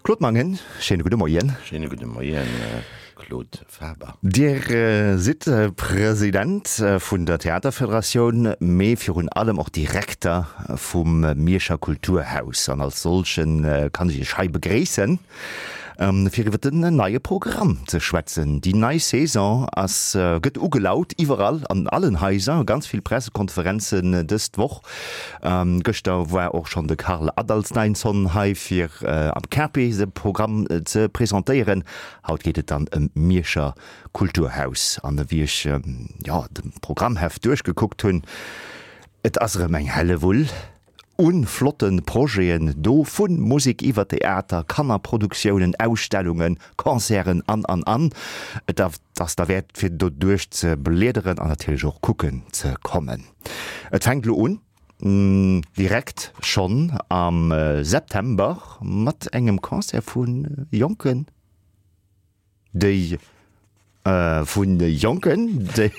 Claude Mangen, schéine gudde Moien. Schéine gudde Moien, Claude Faber. Dir sidd President vun der Theaterfederatioun, mee virun allem och Direkter vum Mierscher Kulturhaus. An als solche kann ech Iech hei begréissen, fir iwwer den neie Programm ze schwätzen. Déi nei Saison ass, gëtt ugelaut iwwerall, an allen Haiser, ganz vill Pressekonferenzen dës Woch. Gëschter war och schonn de Karl Adalsteinsson hei fir am KP de Programm ze presentéieren. Haut geet et dann ëm d'Mierscher Kulturhaus. An ewéi ech jo de Programmheft duerchgekuckt hunn, et ass erëm eng Hellewull u flotte Projeten do, vu Musek iwwer Theater, Kannerproduktiounen, Ausstellungen, Concerten an an an. Et ass derwäert fir do duerch ze bliederen an natierlech och kucken ze kommen. Et fänkt elo un, direkt schonn am September mat engem Concert vu Jonken, déi vu Jonken, déi.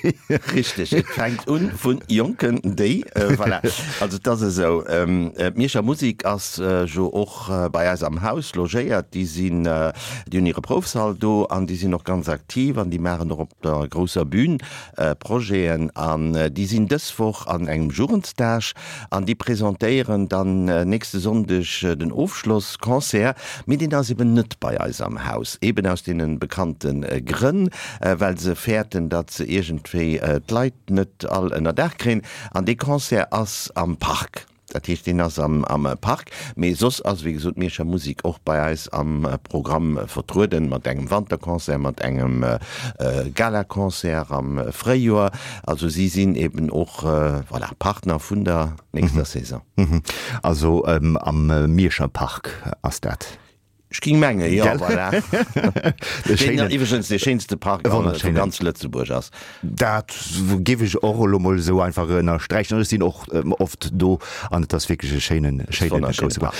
Richteg, et fänkt un vu Jonken, déi, voilà. Also et ass esou, d'Mierscher Musik ass jo och bei eis am Haus logéiert. Déi sinn, déi hunn hire Proufsall do an déi sinn och ganz aktiv an déi maachen och op der grousser Bühn Projeten an déi sinn dës Woch an engem Jugendstage an déi presentéieren dann nächste Sonndeg den Ofschlossconcert. Mee deen ass eben net bei eis am Haus, eben aus deene bekannte Grënn, well se fäerten, datt se iergendwéi d'Leit net all ënnerdaach kréien. An dee Concert ass am Park. Dat heescht, deen ass am Park. Mee soss ass, wéi gesot, d'Mierscher Musik och bei eis am Programm vertrueden, mat engem Wanterconcert, mat engem Galaconcert am Fréijoer. Also si sinn eben och, voilà, Partner vun der nächster Saison. Also am Mierscher Park ass dat? Ech ging mengen, jo, voilà. Deen iwwregens dee schéinste Park vu ganz Lëtzebuerg ass. Dat géif ech och elo mol esou einfach ënnersträichen. Ech sinn och oft do an et ass wierklech e schéinen, schéinen grousse Park.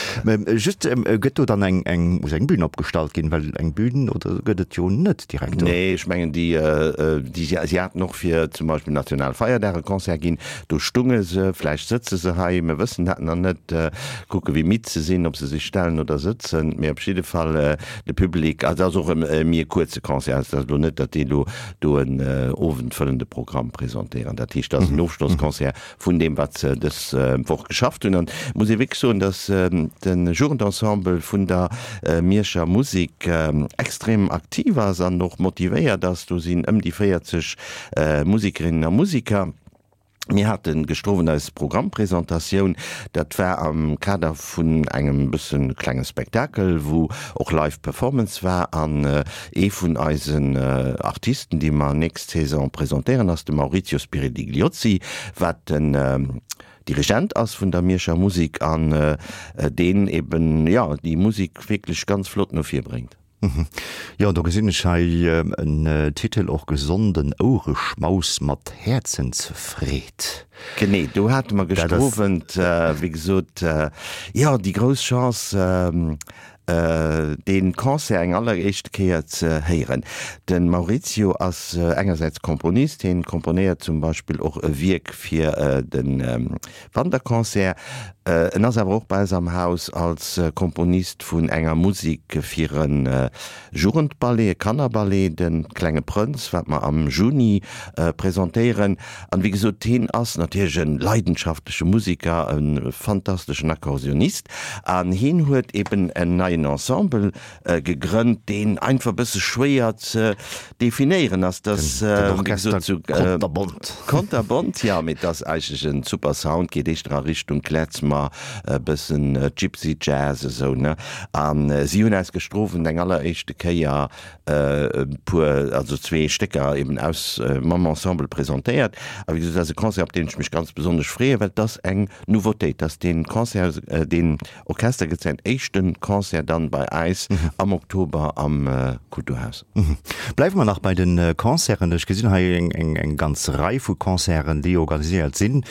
Just, gëtt do dann eng, eng, muss eng Bühn opgestallt ginn? Well eng Bühn oder gëtt et jo net direkt do. Nee, ech mengen déi, déi, si haten och fir zum Beispill Nationalfeierdag e Concert ginn. Do stunge se, vläicht sëtze se hei, mir wëssen dat nach net. Kucke wéi midd se sinn, ob se sech stellen oder sëtzen. Mee op jidde Fall de Public, also et ass och e méi e kuerze Concert, also et ass elo net, datt déi elo do en owendfëllende Programm presentéieren. Dat heescht, et ass en Ofschlossconcert vun deem, wat se dës Woch geschafft hunn. An et muss ee wierklech soen, datt de Jugendensemble vun der Mierscher Musek extrem aktiv ass an och motivéiert ass. Do sinn ëm déi 40 Musikerinnen a Musiker. Mir hate gëschter Owend eis Programmpresentatioun. Dat war am Kader vun engem bësse klenge Spektakel, wou och Live Performance war. An ee vun eisen Artisten, déi mer nächst Saison presentéieren, ass de Maurizio Spiridigliozzi, wat den Dirigent ass vun der Mierscher Musik an deen eben, jo, déi Musik wierklech ganz flott no vir bréngt. Jo, do gesinn ech hei en Titel och, Gesonden Ouereschmaus mat Häerzensfreed. Genee, do hate mer gëschter Owend, wéi gesot, jo, déi grouss Chance, dee Concert eng alleréischte Kéier ze héieren. De Maurizio ass engersäits Komponist, hien komponéiert zum Beispill och e Wierk fir de Wanterconcert. En ass awer och bei eis am Haus als Komponist vun enger Musik fir e Jugendballet, e Kannerballet, De klenge Prënz, wat mer am Juni presentéieren. An wéi gesot, hien ass natierlech e leidenschaftleche Musiker, e fantasteschen Akkordeonist an hien huet eben en neien Ensemble gegrënnt, deen einfach e bësse schwéier ze definéieren ass. Dass, Den Orchester Konterbont. Konterbont, jo, mee et ass eigentlech en super Sound, geet éischter a Richtung Klezmer, e bëssen Gypsy Jazz esou, ne? A si hunn eis gëschter Owend eng alleréischte Kéier e puer, also zwee Stécker eben aus mam Ensemble presentéiert. A wéi gesot, dat ass e Concert, op deen ech mech ganz besonnesch freeën, well et ass eng Nouveautéit, dass dee Concert, deen Orchester gëtt säin éischte Concert dann bei äis am Oktober am Kulturhaus. Bleiwe mer nach bei de Concerten. Ech gesinn hei eng ganz Rei vu Concerten, déi organiséiert sinn,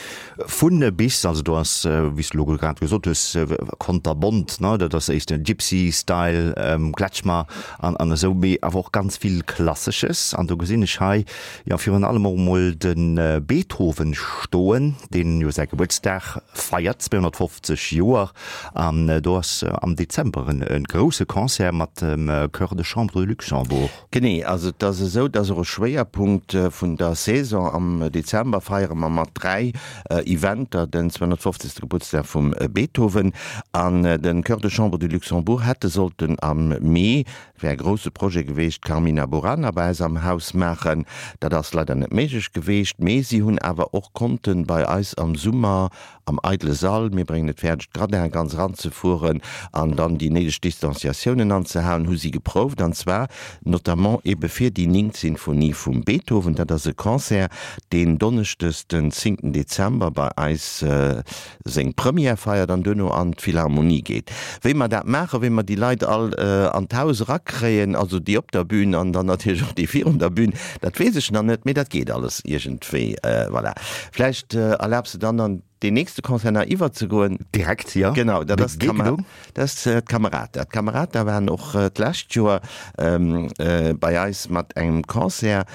vu bis. Also do ass, wéi s de elo grad gesot hues, konterbont, ne, dat ass éischter Gypsy Style, Klezmer an esou, mee awer och ganz vill Klassesches. An do gesinn ech hei jo virun allem och emol de Beethoven stoen, deen jo säi Gebuertsdag feiert, 250 Joer, an do ass am Dezember en. e grousse Concert mat dem Chœur de Chambre de Luxembourg. Genee, also et ass esou, dass och e Schwéierpunkt vun der Saison am Dezember feiere mer mat 3 Eventer den 250. Gebuertsdag vum Beethoven an den Chœur de Chambre du Luxembourg hätte sollten am Mee, wär e grousse Projet geweecht, d'Carmina Burana bei eis am Haus maachen. Dat ass leider net méiglech geweecht, mee si hunn awer och konnten bei eis am Summer Am eidele Sall, mir bréngen et fäerdeg d'Gradinen ganz eranzefueren an dann déi néideg Distanciatiounen anzehalen, hu si geprouft, an zwar notamment ebe fir déi néngt Sinfonie vum Beethoven. Dat ass e Concert, deen donneschdes den zéngten Dezember bei eis seng Première feiert an duerno an d'Philharmonie geet. Wéi mer dat maachen, wéi mer déi Leit all an d'Haus erakréien, also déi op der Bühn an dann natierlech och déi virun der Bühn, dat weess ech nach net, mee dat geet alles iergendwéi. Voilà. Vläicht erlaabs de dann an deen nächste Concert nach iwwerzegoen. Direkt, jo. Genau, dat ass d'Camerata. D'Camerata waren och d'lescht Joer bei eis mat engem Concert,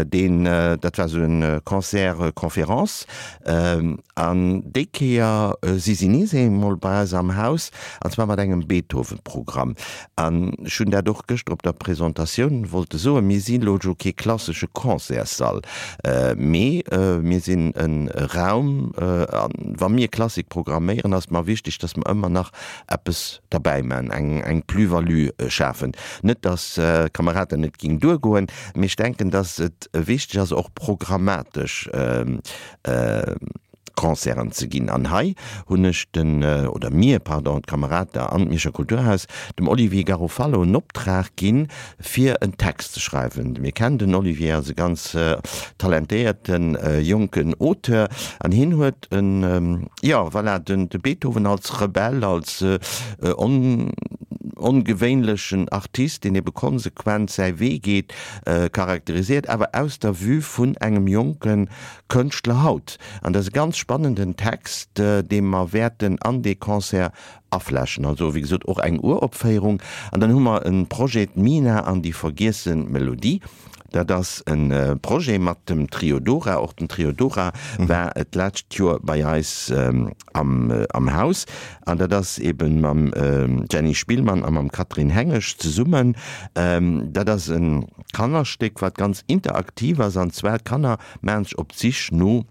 deen, dat war esou e Concert-conférence. An déi Kéier si si nees eemol bei eis am Haus, an zwar mat engem Beethoven-Programm. An ech hunn dat och gëschter op der Presentatioun wollte soen, Mir si lo jo kee klassesche Concertssall, mee mir sinn e Raum, a wa mir Klassik programméieren, ass et mer wichteg, dass mer ëmmer nach eppes derbäi maachen, eng Plus-value schafen. Net, dass Camerata net géing duergoen, mee ech denken, dass et wichteg ass, och programmatesch Concerten ze ginn. An hei hunn ech den, oder mir, pardon, d'Kamerata an d'Mierscher Kulturhaus, dem Olivier Garofalo en Optrag ginn, fir en Text ze schreiwen. Mir kennen den Olivier als e ganz talentéierte jonken Auteur an hien huet en, jo, voilà, den de Beethoven als Rebell, als ongewéinlechen Artist, deen ebe konsequent säi Wee geet, charakterisiert, awer aus der Vue vun engem jonke Kënschtler haut. An dat ass e ganz spannenden Text, dee mer wäerten an dee Concert aflächen. Also, wéi gesot, och eng Uropféierung. An dann hu mer e Projet, D'Mina an déi vergiesse Melodie. Dat ass e Projet mat dem Trio Dora. Och den Trio Dora war d'lescht Joer bei eis am Haus. An dat ass eebe mam Jenny Spillmann a mam Catherine Hengesch zesummen. Dat ass e Kannerstéck, wat ganz interaktiv ass. An zwar d'Kanner Maachen sech op d'Sich no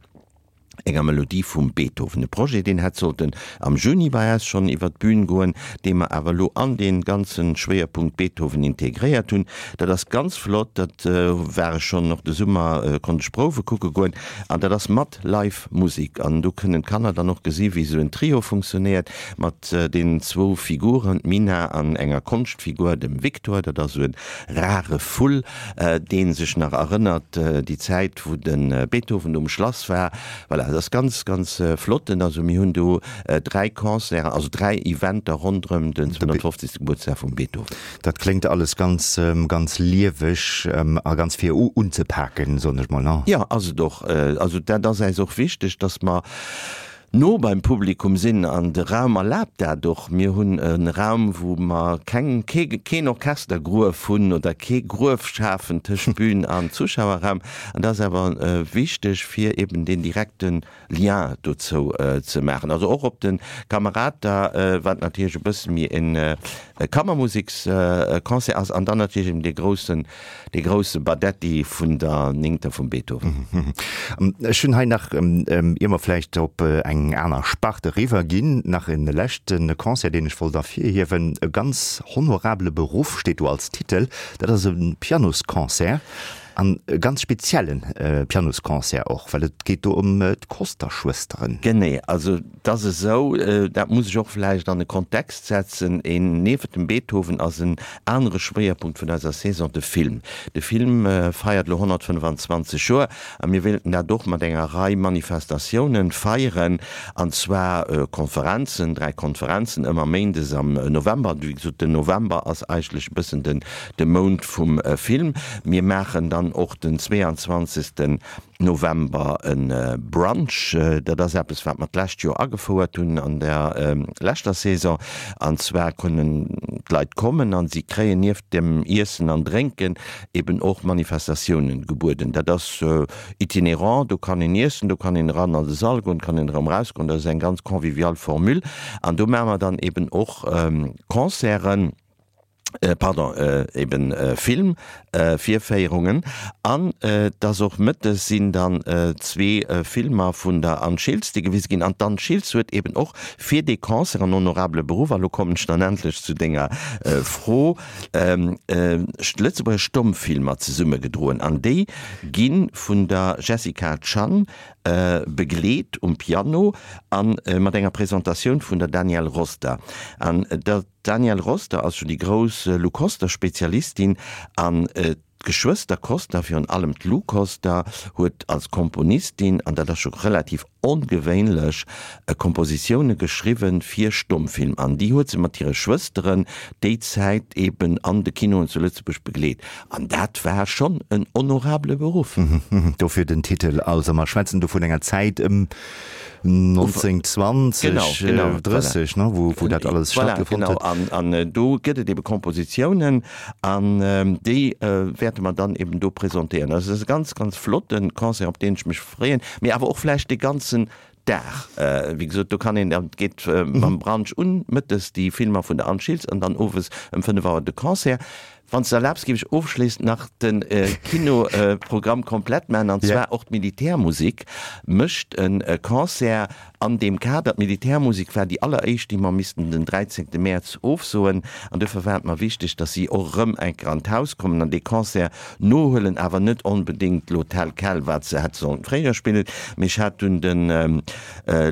enger Melodie vum Beethoven. E Projet, deen hätt sollten am Juni bei eis schonn iwwer d'Bün goen, dee mer awer elo an dee ganze Schwéierpunkt Beethoven integréiert hunn. Dat ass ganz flott, dat war ech schonn och de Summer, konnt ech Prouwe kucke goen an dat ass mat Live Musik an do kënnen d'Kanner dann och gesi wéi esou en Trio funktionéiert mat deenen zwou Figuren, d'Mina an enger Konschtfigur, dem Victor, dat ass esou e rare Vull. Deen sech nach erënnert, déi Zäit wou de Beethoven do um Schlass war. Voilà, dat ass ganz, ganz flott. Also mir hunn do 3 Concerten, also 3 Eventer ronderëm den 250. Gebuertsdag vum Beethoven. Dat kléngt alles ganz, ganz lieweg a ganz fir unzepaken, soen ech mol, ne? Jo, ass et och. Also dat ass äis och wichteg, dass mer no beim Publikum sinn an de Raum erlaabt dat och. Mir hunn e Raum, wou mer keng, kee, keen Orchestergruef hunn oder kee Gruef schafen tëscht Bühn an Zuschauerraum. An dat ass awer wichteg, fir eben deen direkte Lien dozou ze maachen. Also och op de Camerata, wat natierlech e bësse méi e Kammermuseksconcert ass, an dann natierlech eben dee groussen Dee grousse Badetti vun der Néngter vum Beethoven. Ech hunn hei nach, ier mer vläicht op eng aner Spart eriwwer ginn, nach e leschte Concert, deen ech wollt ervirhiewen. E ganz honorabele Beruff steet do als Titel. Dat ass e Pianosconcert an e ganz spezielle Pianosconcert och, well et geet do ëm d'Koster-Schwësteren. Genee, also 't ass esou, dat muss ech och vläicht an e Kontext setzen, een, niewent dem Beethoven ass en anere Schwéierpunkt vun eiser Saison de Film. De Film feiert elo 125 Joer a mir wéilten dat och mat enger Rei Manifestatiounen feieren, an zwar Konferenzen, 3 Konferenzen ëmmer méindes am November. Wéi gesot, den November ass eigentlech e bëssen den de Mount vum Film. Mir maachen dann. dann och den 22. November e Brunch. Dat ass eppes, wat mer d'lescht Joer agefouert hunn an der leschter Saison. An zwar kënnen d'Leit kommen a si kréien nieft dem Iessen an Drénken eben och Manifestatiounen gebueden. Dat ass itinerant, do kann een iessen, do kann een eran an de Sall goen, kann een erëm erausgoen. Dat ass eng ganz convivial Formule. An do maache mer dann eben och Concerten. pardon, eben Film Virféierungen an dass och mëttes sinn dann zwee Filmer vun der Anne Schiltz déi gewise ginn an d'Anne Schiltz huet eben och fir dee Concert en honorable Beruff, a lo kommen ech dann endlech zu denger Fro, Lëtzebuerger Stommfilmer zesummegedroen an déi gi vun der Jessica Chan begleet um Piano a mat enger Presentatioun vun der Danielle Roster an der. D'Danielle Roster ass jo déi grouss Lou Koster-Spezialistin an d'Geschwëster Koster, virun allem d'Lou Koster, huet als Komponistin, an dat ass scho relativ ongewéinlech, Kompositioune geschriwwe fir Stommfilm. An déi huet se mat hire Schwësteren déi Zäit eben an de Kinoen zu Lëtzebuerg begleet. An dat war schonn en honorabele Beruff. Dofir den Titel. Also mer schwätzen do vun enger Zäit ëm 1920, genau, genau, 30, ne, wou, wou dat alles voilà, stattgefonnt genau. huet. An, an äh, do gëtt et ebe Kompositiounen an ähm, déi äh, wäerte mer dann eben do presentéieren. Also dat ass e ganz, ganz flotte Concert, op deen ech mech freeën, mee awer och vläicht de ganzen Dag. Äh, wéi gesot, do kann een, dat geet äh, mam Brunch un, mëttes déi Filmer vun der Anne Schiltz an dann owes ëm 5 Auer de Concert. Wann s de erlaabs, géif ech ofschléissend nach de Kinoprogramm komplett maachen, an zwar och d'Militärmusik mécht e Concert an deem Kader. D'Militärmusik war déi alleréischt, déi mer missten den 13 Mäerz ofsoen, an duerfir war et mer wichteg, datt si och erëm eng Kéier an d'Haus kommen an dee Concert nohuelen, awer net onbedéngt elo tel quel, wat se hätte sollen fréier spillen. Mee ech hat dunn de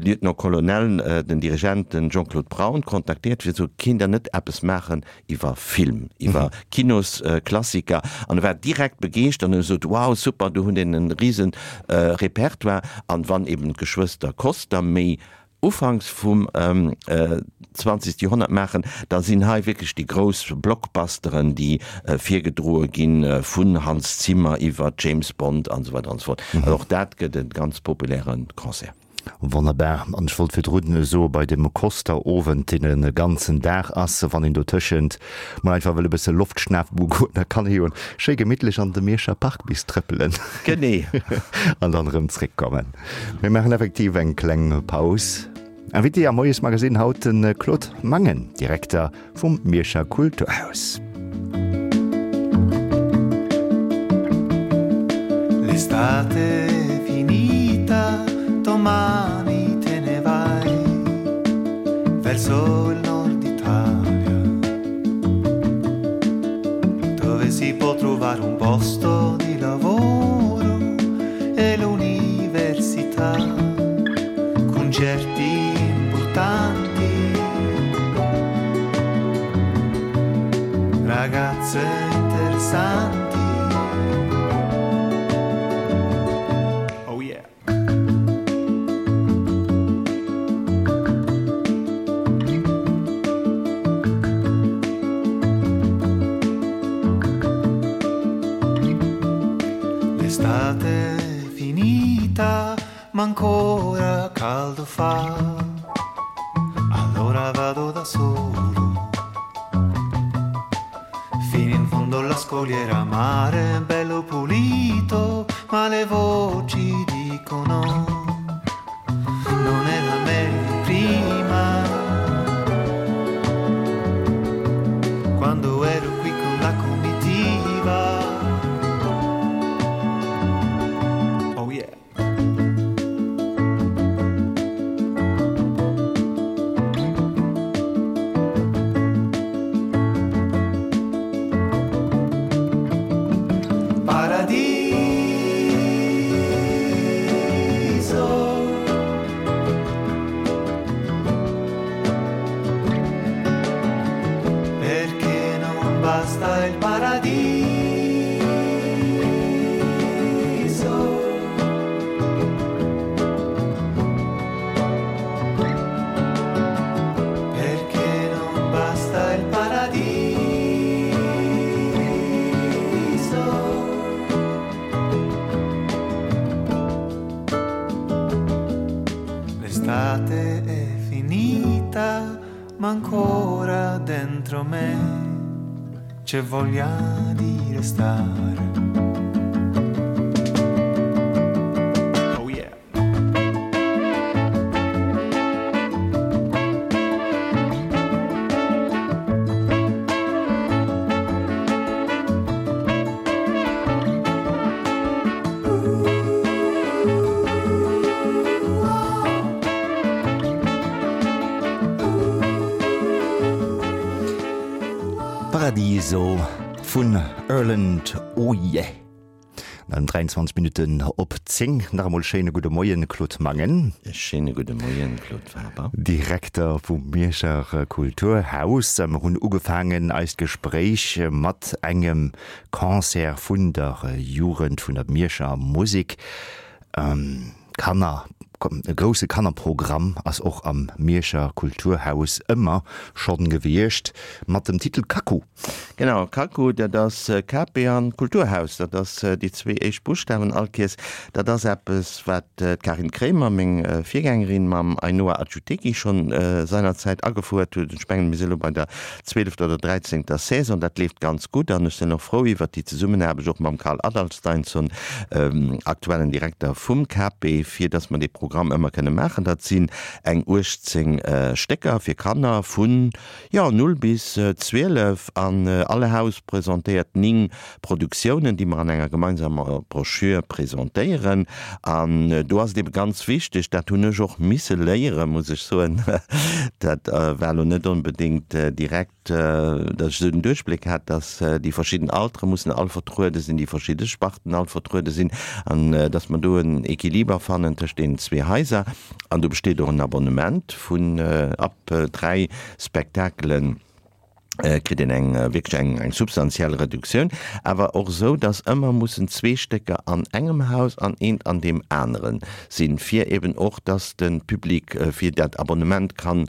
Lieutenant-Colonel, den Dirigent, den Jean-Claude Braun, kontaktéiert, fir ze soen, Kéint Der net eppes maachen iwwer Film, iwwer Kinosklassiker an e war direkt begeeschtert an huet gesot, wow super, do hunn een e risen Repertoire an wann eben d'Geschwëster Koster méi ufanks vum 20. Joerhonnert maachen, da sinn hei wierklech déi grouss Blockbusteren, déi virgedroe ginn, vun Hans Zimmer iwwer James Bond an esou weider an esou fort. Also och dat gëtt e ganz populäre Concert. Wonnerbar. An ech wollt virdrun soe bei dem Koster-Owend, deen e ganzen Dag ass, wann een dotëschent mol einfach wëll e bësse Loft schnafen goen, da kann ee jo schéi gemittlech an de Mierscher Park bis trëppelen. Genee. An dann erëm zréckkommen. Mir maachen effektiv eng kleng Paus. Invité am Moiesmagazine haut de Claude Mangen, Direkter vum Mierscher Kulturhaus. L'estate è finita, domani te ne vai verso il nord Italia, dove si può trovare un posto di lavoro e l'università, concerti importanti. Ragazze interessanti. Oh yeah. L'estate è finita, ma ancora caldo fa. Allora vado da solo. Fino in fondo alla scogliera, mare bello pulito, ma le voci dicono non era meglio prima. Quando ero qui con la comitiva. Oh yeah. Paradiso. Perché non basta il paradiso. Perché non basta il paradiso. Ma ancora dentro me c'è voglia di restare. Oh yeah. Paradiso vun Erland Oye. An 23 Minutten op 10. Nach emol schéine gudde Moien, Claude Mangen. E schéine gudde Moien, Claude Faber. Direkter vum Mierscher Kulturhaus. Mer hunn ugefaangen eist Gespréich mat engem Concert vun der Jugend vun der Mierscher Musek. Kanner, e grousse Kannerprogramm ass och am Mierscher Kulturhaus ëmmer schonn gewiescht, mat dem Titel Kaku. Genau, Kaku, dat ass KP an Kulturhaus, dat ass déi zwee éischt Buschtawen all Kees. Dat ass eppes, wat d'Karin Kremer, meng Virgängerin, mam Ainhoa Achutegui schonn seinerzäit agefouert huet. Ech mengen, mir si elo bei der zwielefter oder dräizéngter Saison. Dat leeft ganz gutt an ech sinn och frou iwwert déi Zesummenaarbecht och mam Karl Adalsteinsson, aktuellen Direkter vum KP, fir datt mer dee Programm ëmmer kënne maachen. Dat sinn eng 18 Stécker fir Kanner vun, jo, 0 bis 12 an all Haus presentéiert 9 Produktiounen, déi mer an enger gemeinsamer Broschür presentéieren. An do ass et ebe ganz wichteg, dat hunn ech och misse léieren, muss ech soen, dat war elo net onbedéngt direkt, datt ech esou den Duerchbléck hat, datt déi verschidden Altere mussen all vertruede sinn, déi verschidde Sparten all vertruede sinn an datt mer do en Equiliber fannen tëscht deenen zwee Haiser. An do besteet och en Abonnement vun ab 3 Spektakelen. kritt een eng wierklech eng eng substantiell Reduktioun, awer och esou, datt ëmmer mussen zwee Stécker an engem Haus an eent an deem anere sinn, fir eben och, datt de Public fir dat Abonnement kann,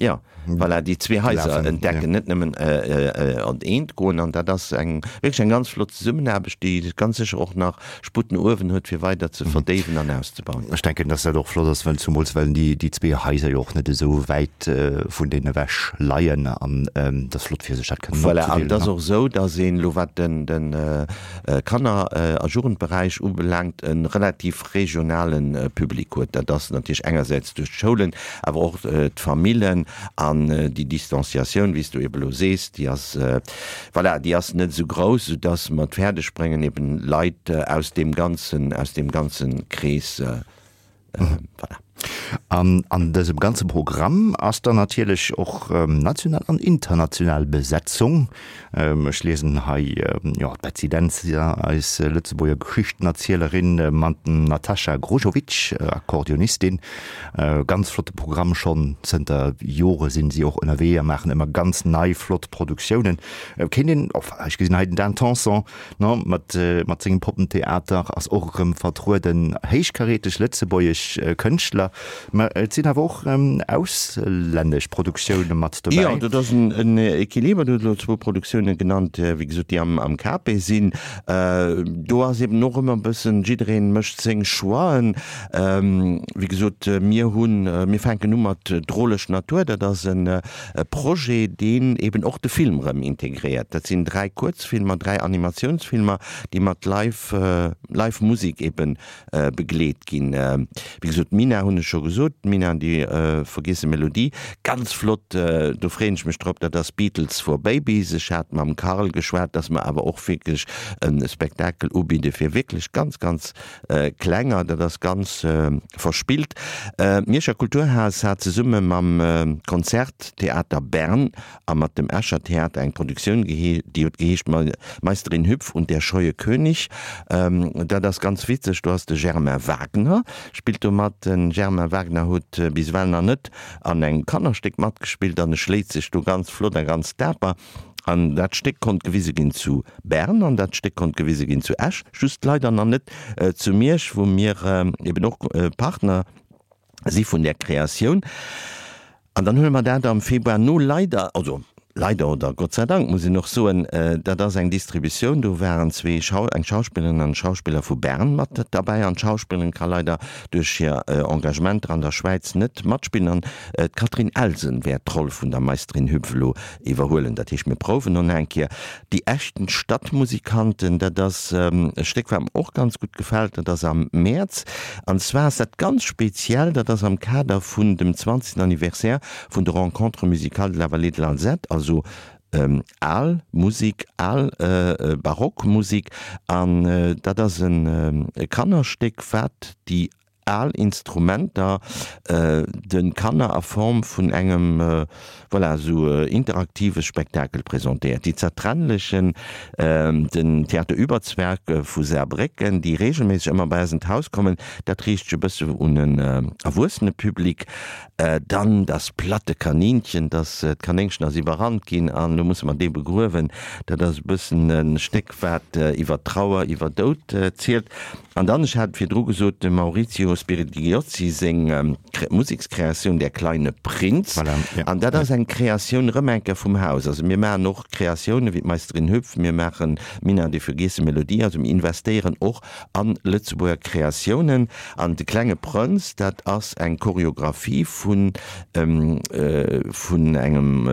jo, voilà, déi zwee Haiser entdecken, net nëmmen an eent goen. An dat ass eng wierklech eng ganz flott Zesummenaarbecht, déi ganz sécher och nach Sputt no uewen huet, fir weider ze verdéiwen an auszebauen. Ech denken, dass dat och flott ass, well zumools well déi zwee Haiser jo och net esou wäit vun deenen ewech leien an et ass flott fir sech dat kënnen Voilà, an et ass och esou, dass een elo wat den Kanner a Jugendberäich ubelaangt e relativ regionale Public huet. Dat ass natierlech engersäits duerch d'Schoulen, awer och d'Famillen an déi Distanciatioun, wéi s du ebe elo sees, déi ass Voilà, déi ass net esou grouss, soudass mer et fäerdeg bréngen, eben Leit aus deem ganzen, aus deem ganze Krees, voilà. An an dësem ganze Programm ass dann natierlech och national an international Besetzung. Ech liesen hei, jo, d'Betsy Dentzer, eis Lëtzebuerger Geschichtenerzielerin, mat dem Natascha Grujovic, Akkordeonistin. Ganz flotte Programm, schonn zënter Jore sinn si och ënnerwee a maachen ëmmer ganz nei flott Produktiounen. Kéint een, ech gesinn hei den Dan Tanson, ne, mat mat sengem Poppentheater ass och erëm vertrueden, héichkaräteg lëtzebuergesch Kënschtler, mä et sinn awer och auslännesch Produktioune mat dobäi. Jo, dat ass en Equiliber. Du hues elo zwou Produktioune genannt, wéi gesot, déi am KP sinn. Do ass eben och ëmmer e bëssen, jiddereen mécht seng Choixen. Wéi gesot, mir hunn, mir fänken u mat Droleg Natur. Dat ass e Projet, deen eben och de Film erëm integréiert. Dat sinn dräi Kuerzfilmer, dräi Animatiounsfilmer, déi mat Live, Live Musek ebe begleet ginn. Wéi gesot, d'Mina hunn ech scho gesot, d'Mina an déi vergiesse Melodie, ganz flott, do freeën ech mech drop. Dat ass Beatles for Babies. Ech hat mam Carl geschwat, dass mer awer och wierklech e Spektakel ubidde fir wierklech ganz, ganz Klenger, dat ass ganz verspillt. D'Mierscher Kulturhaus hat zesumme mam Konzerttheater Bern a mat dem Escher Theater eng Produktioun, déi huet geheescht Meisterin Hüpf und der scheue König. Dat ass ganz witzeg, do ass de Germain Wagner spillt do mat. De Germain Wagner huet bis ewell nach net an engem Kannerstéck matgespillt an e schléit sech do ganz flott a ganz daper. An dat Stéck konnt gewise ginn zu Bern an dat Stéck konnt gewise ginn zu Esch, just leider nach net zu Miersch, wou mir eben och Partner si vun där Kreatioun. An dann huele mer dat am Februar no leider, also. Leider oder Gott sei Dank muss een och soen, dat ass eng Distributioun, do waren zwee Schau, eng Schauspillerin an en Schauspiller vu Bern mat derbäi an d'Schauspillerin ka leider duerch hir Engagementer an der Schwäiz net matspillen an d'Catherine Elsen wäert d'Roll vun der Meisterin Hüpf elo iwwerhuelen. Dat heescht, mir prouwen och nach eng Kéier. Die echten Stadtmusikanten, dat ass e Stéck wat mer och ganz gutt gefält, dat ass am Mäerz an zwar ass dat ganz speziell, dat ass am Kader vun dem 20. Anniversaire vun de Rencontres musicales de la Vallée de l'Alzette, also al Musik, al barock Musik, an dat ass e Kannerstéck, wat déi al Instrumenter de Kanner a Form vun engem, voilà, esou interaktive Spektakel presentéiert. Die Zertrennlichen, den Theater Überzwerg vu Saarbrécken, déi regelméisseg ëmmer bei eis an d'Haus kommen, dat riicht sech e bësse un en erwuessene Public. Dann das platte Kaninchen, dass d'Kanéngchen ass iwwerrannt ginn an elo musse mer dee begruewen. Dat ass e bëssen e Stéck, wat iwwer Trauer, iwwer Doud zielt. An dann, ech hat et virdru gesot, dem Maurizio Spiridigliozzi seng Musekskreatioun Der kleine Prinz. An dat ass eng Kreatioun erëm eng Kéier vum Haus. Also mir maachen och Kreatiounen wéi d'Meisterin Hüpf, mir maachen Minna, die vergessene Melodie. Also mir investéieren och a Lëtzebuerger Kreatiounen. An De klenge Prënz, dat ass eng Choreographie vun vun engem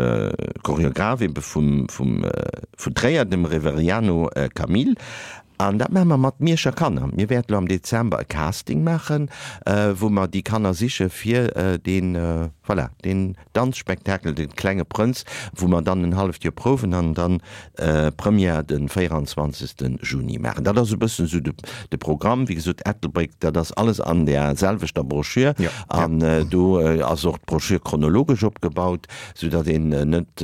Choreograph ebe vum vum vun Tréier, dem Reveriano Camille. An dat maache mer mat Mierscher Kanner. Mir wäerten elo am Dezember e Casting maachen, wou mer déi Kanner siche fir deen, voilà, deen Danzspektakel De klenge Prënz, wou mer dann en halleft Joer prouwen an dann Première de 24 Juni maachen. Dat ass e bëssen esou de Programm. Wéi gesot, Ettelbréck, dat ass alles an där selwechter Broschür. An do ass och d'Broschür chronologesch opgebaut, soudatt een net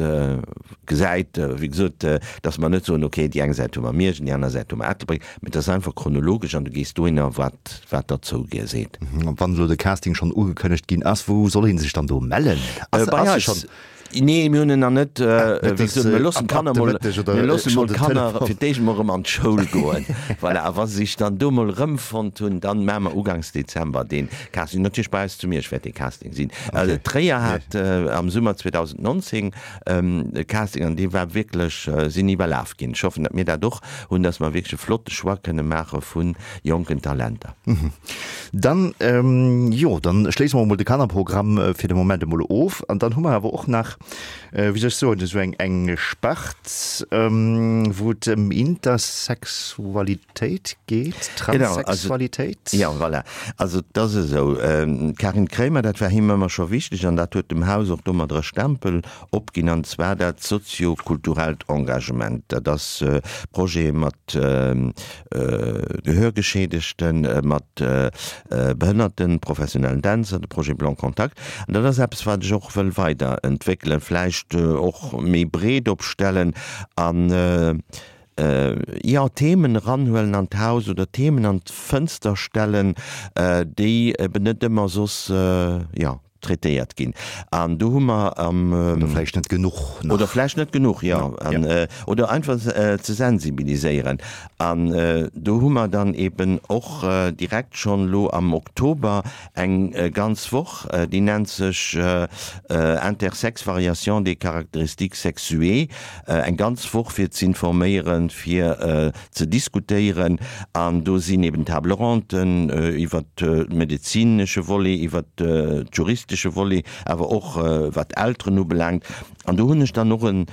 gesäit, wéi gesot, datt mer net soen, okay, déi eng Säit hu mer Miersch an déi aner Säit hu mer Ettelbréck, mee et ass einfach chronologesch an du gees dohinner, wat wat der zouseet. Wann elo de Casting schonn ugekënnegt ginn ass, wou soll ee sech dann do mellen? Bei eis. Nee, mir hunn en nach net. Wéi gesot, mir loossen d'Kanner mol, mir loossen mol d'Kanner fir d'éischt mol erëm an d'Schoul goen. Voilà, a wa se sech dann do mol erëmfonnt hunn, dann maache mer uganks Dezember dee Casting. Natierlech bei eis zu Miersch wäert dee Casting sinn. Tréier hat am Summer 2019 e Casting an dee war wierklech, sinn iwwerlaf ginn. Ech hoffen, datt mir dat och hunn, datt mer wierklech e flotte Choix kënne maache vu jonken Talenter. Dann, jo, dann schléisse mer emol de Kannerprogramm fir de Moment emol of. An dann hu mer awer och nach, wéi soll ech soen, esou eng, eng Spart, wou et ëm Intersexualitéit geet, Transsexualitéit. Jo, voilà. Also et ass esou, d'Karin Kremer, dat war him ëmmer scho wichteg an dat huet dem Haus och domadder e Stempel opginn, an zwar dat sozio-kulturellt Engagement. Dat ass Projete mat Gehörgeschädegten, mat behënnerten, professionellen Dänzer, de Projet Blanc Contact. An dat ass eppes, wat ech och wëll weiderentwéckelen, vläicht och méi breet opstellen an, jo, Themen eranhuelen an d'Haus oder Themen an d'Fënster stellen, déi eben net ëmmer soss, jo, traitéiert ginn. An do hu mer am. Oder vläicht net genuch nach. Oder vläicht net genuch, jo. An, oder einfach ze sensibiliséieren. An do hu mer dann eben och direkt schonn elo am Oktober eng ganz Woch, déi nennt sech Intersex, variation des caractéristiques sexuées, eng ganz Woch fir z'informéieren, fir ze diskutéieren an do sinn eben Table ronden iwwert de medezinesche Volet, iwwert de juristesche Volet, awer och wat d'Elteren ubelaangt. An do hunn ech dann och e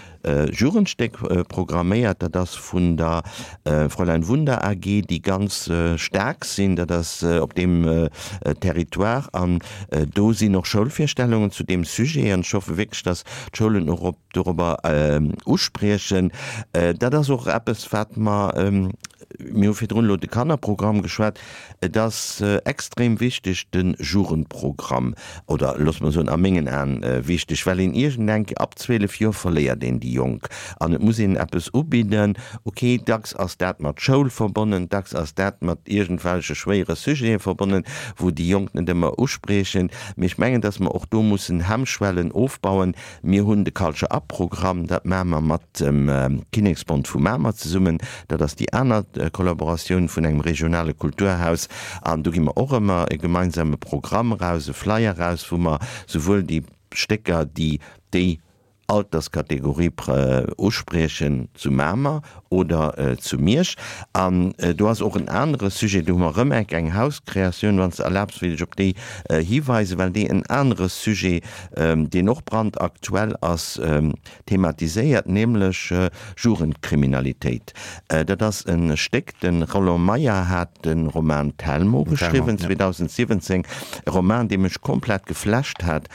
Jugendstéck programméiert, dat ass vun der Fräulein Wunder AG, déi ganz staark sinn, dat ass op deem Territoire an do sinn och Schoulvirstellungen zu deem Sujet an ech hoffe wierklech, datt d'Schoulen och op dorobber uspriechen. Dat ass och eppes, wat mer, mir hu virdrun elo de Kannerprogramm geschwat, et ass extrem wichteg, de Jugendprogramm, oder loosse mer soen, a mengen Aen wichteg, well een iergendeng Kéier ab 12 Joer verléiert een déi Jonk an et muss een eppes ubidden. Okay, dacks ass dat mat Schoul verbonnen, dacks ass dat mat iergendwelche schwéiere Sujete verbonnen, wou déi Jonk net ëmmer uspriechen. Mee ech mengen, dass mer och do mussen Hemmschwellen ofbauen, Mir hunn de Culture Up Programm, dat maache mer mat dem Kinneksbond vu Mamer zesummen. Dat ass déi aner Kollaboratioun vun engem regionale Kulturhaus. An do gi mer och ëmmer e gemeinsame Programm eraus, e Flyer eraus, wou mer souwuel déi Stécker, déi déi. Alterskategorie uspriechen zu Mamer oder zu Miersch. An do ass och en anere Sujet, do hu mer erëm enk eng Hauskreatioun, wann s de erlaabs, wéilt ech op déi hiweisen, well déi en anere Sujet, deen och brandaktuell ass, thematiséiert, nämlech Jugendkriminalitéit. Dat ass e Stéck, de Roland Meyer hat de Roman Telmo geschriwwen, 2017, e Roman, dee mech komplett geflasht hat,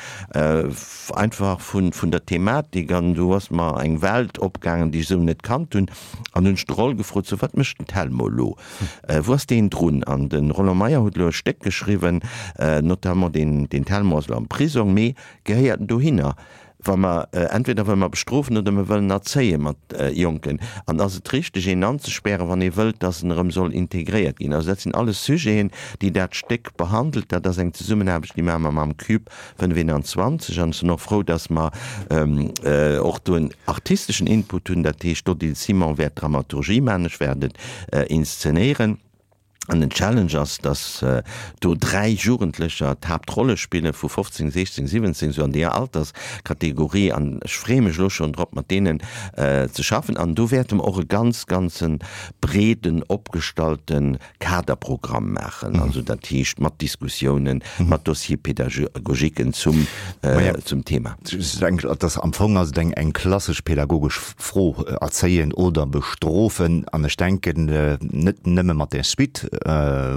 einfach vun der Thematik, an do ass mer eng Welt opgaangen, déi ech esou net kannt hunn. An hunn ech de Roll gefrot, sou, wat mécht den Telmo elo, wou ass deen drun? An de Roland Meyer huet elo e Stéck geschriwwen, notamment deen Telmo ass elo am Prisong, mee gehéiert en dohinner? Wa mer, entweder wëlle mer bestrofen oder mer wëllen erzéie mat Jonken. An ass et richteg, een anzespären, wann ee wëllt, dass en erëm soll integréiert ginn? Also dat sinn alles Sujeten, déi dat Stéck behandelt. Dat ass eng Zesummenaarbecht, déi maache mer mam CUBE 25. An ech sinn och frou, dass mer och do en artisteschen Input hunn. Dat heescht, d'Odile Simon wäert d'Dramaturgie maachen, ech wäert et inszenéieren. An den Challenge ass, dass do 3 Jugendlecher d'Haaptrolle spillen, vu 15, 16, 17, esou an deeër Alterskategorie. An ech freeë mech elo schonn drop, mat deenen ze schaffen. An do wäerte mer och e ganz, ganze breeden opgestallte Kaderprogramm maachen, also dat heescht mat Diskussiounen, mat Dossiers pédagogiquen zum, zum Thema. Ech denken, dass am Fong ass et eng, eng klassesch pädagogesch Fro, erzéien oder bestrofen. An ech denken, net nëmme mat där Suite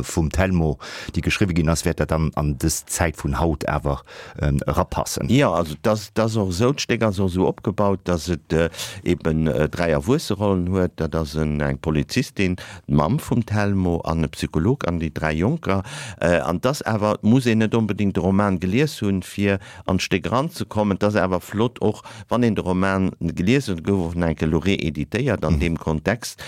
vum Telmo, déi geschriwwe ginn ass, wäert dat dann an dës Zäit vun haut awer erapassen. Jo, also et ass, et ass och esou, d'Stéck ass och esou opgebaut, dass et eben 3 Erwuesserollen huet. Dat ass en, eng Polizistin, d'Mamm vum Telmo an e Psycholog an déi 3 Jonker. An et ass awer, et muss een net onbedéngt de Roman gelies hunn, fir an d'Stéck eranzekommen. Et ass awer flott och, wann een de Roman gelies huet, gouf och nach eng Kéier elo reeditéiert an deem Kontext,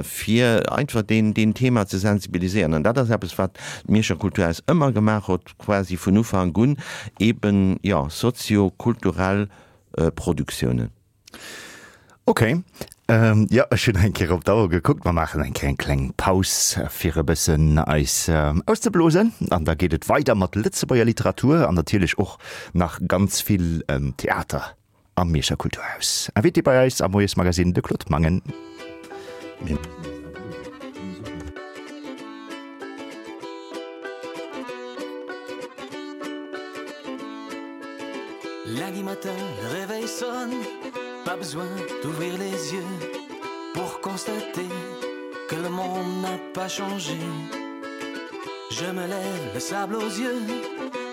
fir einfach deen, deen Thema ze sensibiliséieren. An dat ass eppes, wat d'Mierscher Kulturhaus ëmmer gemaach huet, quasi vun Ufank un, eben, jo, sozio-kulturell Produktiounen. Ok, jo ech hunn eng Kéier op d'Auer gekuckt. Mer maachen eng Kéier eng kleng Paus fir e bëssen eis auszeblosen an da geet et weider mat Lëtzebuerger Literatur an natierlech och nach ganz vill Theater am Mierscher Kulturhaus. Invité bei eis am Moiesmagazine de Claude Mangen. Lundi matin, le réveil sonne, pas besoin d'ouvrir les yeux pour constater que le monde n'a pas changé. Je me lève le sable aux yeux,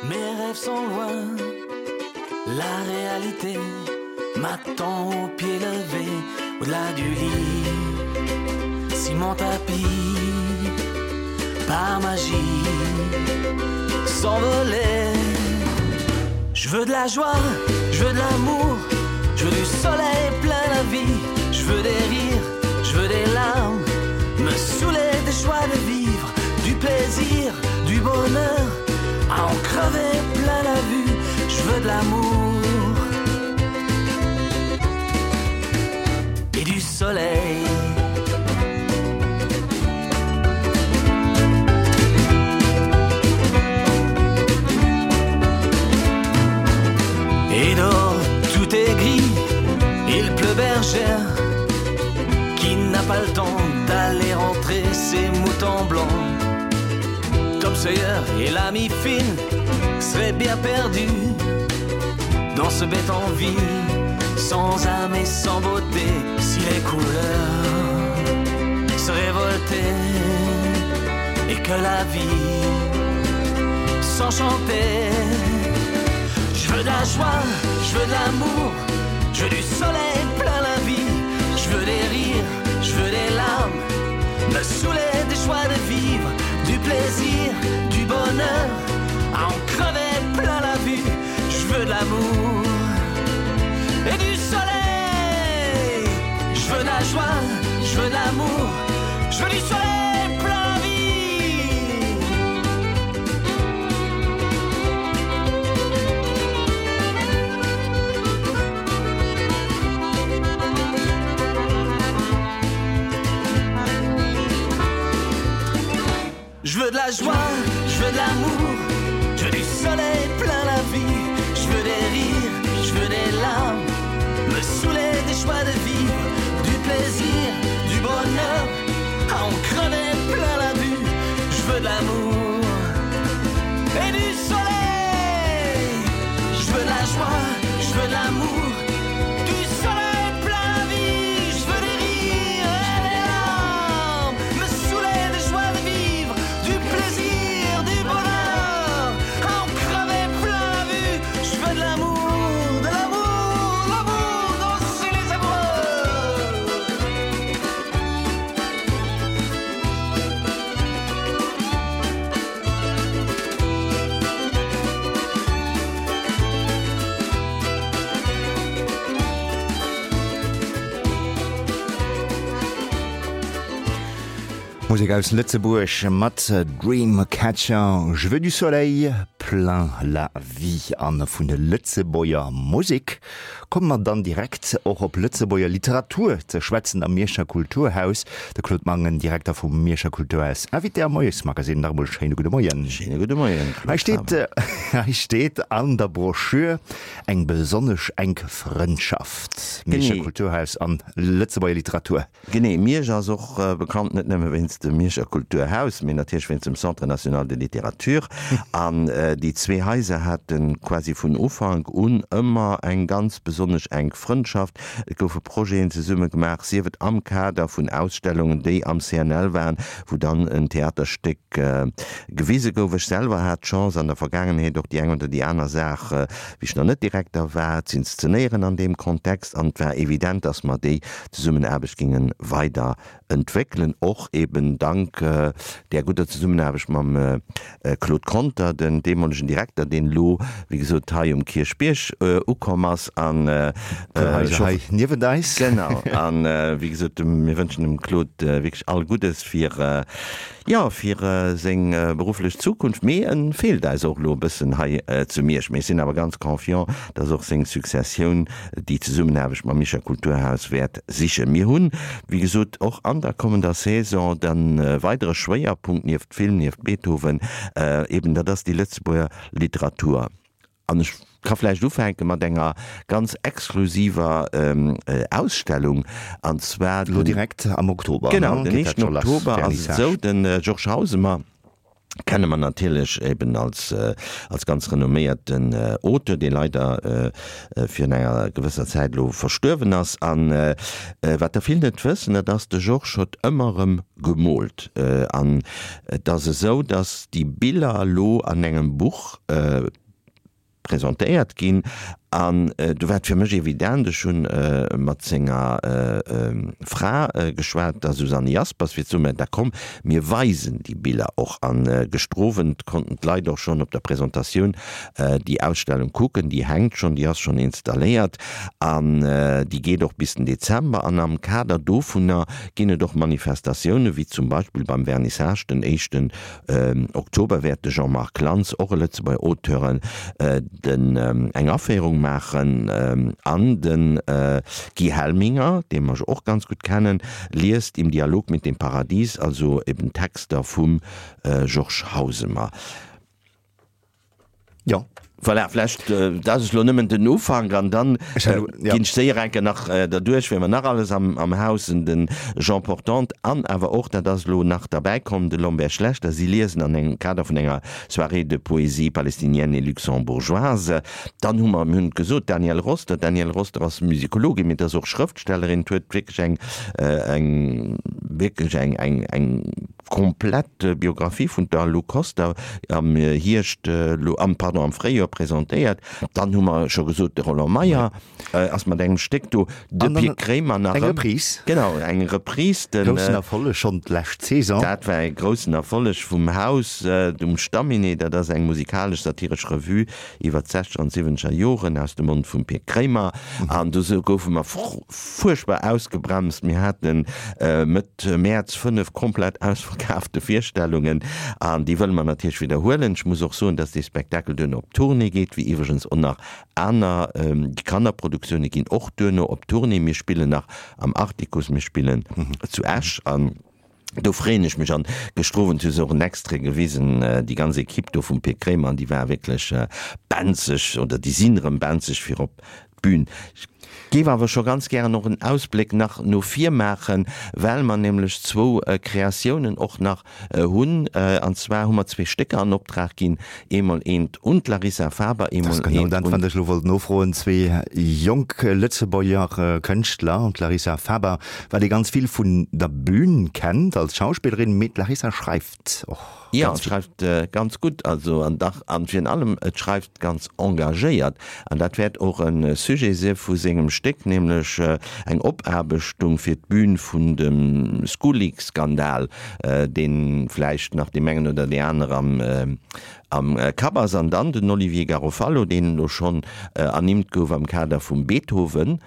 mes rêves sont loin. La réalité m'attend au pied levé au-delà du lit. Si mon tapis par magie s'envolait. Je veux de la joie, je veux de l'amour, je veux du soleil plein la vie, je veux des rires, je veux des larmes, me saouler des choix de vivre, du plaisir, du bonheur, à en crever plein la vue, je veux de l'amour et du soleil. Et dehors tout est gris, il pleut bergère qui n'a pas le temps d'aller rentrer ses moutons blancs. Tom Sawyer et l'ami Finn seraient bien perdus dans ce bête en ville, sans âme et sans beauté, si les couleurs se révoltaient et que la vie s'enchantait. Je veux de la joie, je veux de l'amour, je veux du soleil plein la vie, je veux des rires, je veux des larmes, me saouler des choix de vivre, du plaisir, du bonheur, à en crever plein la vue, je veux de l'amour et du soleil. Je veux de la joie, je veux de l'amour, je veux du soleil plein la vie. Je veux de la joie, je veux de l'amour, je veux du soleil plein la vie, je veux des rires, je veux des larmes. Je veux de l'amour et du soleil Je veux de la joie, je veux de l'amour Du soleil plein la vie Je veux des rires et des larmes Me saouler de joie de vivre Du plaisir, du bonheur À en crever plein la vue Je veux de l'amour, de l'amour, l'amour Danser les amoureux Musek aus Lëtzebuerg mat Dreamcatcher, Je veux du soleil plein la vie. An vun de Lëtzebuerger Musek Komme mer dann direkt och op Lëtzebuerger Literatur ze schwätzen am Mierscher Kulturhaus. De Claude Mangen, Direkter vum Mierscher Kulturhaus, Invité am Moiesmagazine. Nach emol schéine gudde Moien. Schéine gudde Moien, Claude Faber. Hei steet an der Broschür eng besonnesch enk Frëndschaft, Mierscher Kulturhaus an Lëtzebuerger Literatur. Genee, Miersch ass och bekannt net nëmme wéinst dem Mierscher Kulturhaus, mee natierlech wéinst dem Centre national de littérature. An déi zwee Haiser hate quasi vun Ufank un ëmmer eng ganz besonnesch enk Frëndschaft. Et goufe Projeten zesumme gemaach, sief et am Kader vun Ausstellungen, déi am CNL waren, wou dann en Theaterstéck gewise gouf. Ech selwer hat d'Chance an der Vergaangenheet och déi eng oder déi aner Saach, wéi ech nach net Direkter war, z'inszenéieren an deem Kontext. An et war evident, dass mer déi Zesummenaarbecht géinge weider entwéckelen, och eben dank där gudder Zesummenaarbecht mam Claude Conter, den deemolegen Direkter, deen elo, wéi gesot, hei um Kierchbierg ukomm ass an hei niewent eis. Genau. An, wéi gesot, mir wënschen dem Claude wierklech all Guddes fir, Jo, fir seng berufflech Zukunft, mee en feelt eis och elo e bëssen hei zu Miersch. Mee ech sinn awer ganz confiant, dass och seng Successioun déi Zesummenaarbecht mam Mierscher Kulturhaus wäert sichen. Mir hunn, wéi gesot, och an der kommender Saison de weidere Schwéierpunkt nieft Film, nieft Beethoven, eben dat ass déi Lëtzebuerger Literatur. An ech ka vläicht ufänke mat enger ganz exklusiver Ausstellung, an zwar den. Elo direkt am Oktober, ne? Genau, den éischten Oktober ass et esou, de Georges Hausemer kenne mer natierlech eben als, als ganz renomméierten Auteur, dee leider virun enger gewësser Zäit elo verstuerwen ass. An wat der vill net wëssen, dat ass, de Georges huet ëmmer erëm gemoolt. An et ass esou, datt déi Biller elo an engem Buch presentéiert ginn an du war et fir mech evident, ech hunn mat senger Fra geschwat, der Susanne Jaspers, fir ze soen, mä da komm, mir weisen déi Biller och. An gëschter Owend konnten d'Leit och schonn op der Presentatioun déi Ausstellung kucken, déi hänkt schonn, déi ass schonn installéiert an déi geet och bis den Dezember. An am Kader dovunner ginn et och Manifestatiounen, wéi zum Beispill beim Vernissage den éischten Oktober wäert de Jean-Marc Lantz, och e Lëtzebuerger Auteur, den eng Aféierung maachen an de Guy Helminger, dee mer jo och ganz gutt kennen, liest Im Dialog mit dem Paradies, also eben Texter vum Georges Hausemer. Jo. Voilà, vlächtt, dat ass elo nëmmen den Ufank an dann ginn ech séier eng Kéier nach derduerch, wien mer nach alles am am Haus hunn, de Jean Portante an awer och, dat ass elo nach derbäikomm, de Lambert Schlechter. Si liesen an engem Kader vun enger Soirée de poésie palestinienne et luxembourgeoise. Dann hu mer, mir hunn et gesot, d'Danièle Roster. D'Danièle Roster ass Musikologin, mee et ass och Schrëftstellerin. Huet wierklech eng eng wierklech eng eng eng. Komplett Biographie vun der Lou Koster am Hierscht, am, pardon, am Fréijoer presentéiert. Dann hu mer scho gesot, de Roland Meyer ass mat engem Stéck do, de Pir Kremer nach eng Reprise. Genau, eng Reprise. Den groussen Erfolleg schonn d'lescht Saison. Dat war e groussen Erfolleg vum Haus um Stamminet. Dat ass eng musikalesch-satiresch Revue iwwer d'Sechzeger an d'Siwwenzeger Joren aus dem Mond vum Pir Kremer. An do goufe mer fuerchtbar ausgebremst. Mir haten Mëtt Mäerz 5 komplett ausverkaafte Virstellungen an déi wëlle mer natierlech widderhuelen. Ech muss och soen, dass dee Spektakel duerno op Tournée geet, wéi iwwregens och nach aner. Déi Kannerproduktioune ginn och duerno op Tournée. Mir spillen nach am Artikuss, mir spillen zu Esch an do freeën ech mech. An gëschter Owend hu se och en Extrait gewisen, déi ganz Equipe do vum Pir Kremer, an déi war wierklech benzeg oder déi sinn erëm benzeg fir op d'Bün. Géif awer scho ganz gären och en Ausbléck nach no vir maachen, well mer nämlech zwou Kreatiounen och nach hunn. An zwar hu mer zwee Stécker an Optrag ginn, eemol eent un d'Larissa Faber, eemol eent un. Dat ass genau dat, wat ech elo wollt nofroen. Zwee jonk Lëtzebuerger Kënschtler, d'Larissa Faber, wat ee ganz vill vun der Bühn kennt als Schauspillerin, mee d'Larissa schreift och. Jo, et schreift ganz gutt, also an dach an virun allem et schreift ganz engagéiert. An dat wäert och e Sujet si vu sengem Stéck, nämlech eng Opaarbechtung fir d'Bün vun dem School-Leak-Skandal, dee vläicht nach deem engen oder där aner am am Kapp ass. An dann den Olivier Garofalo, deen elo schonn ernimmt gouf am Kader vum Beethoven.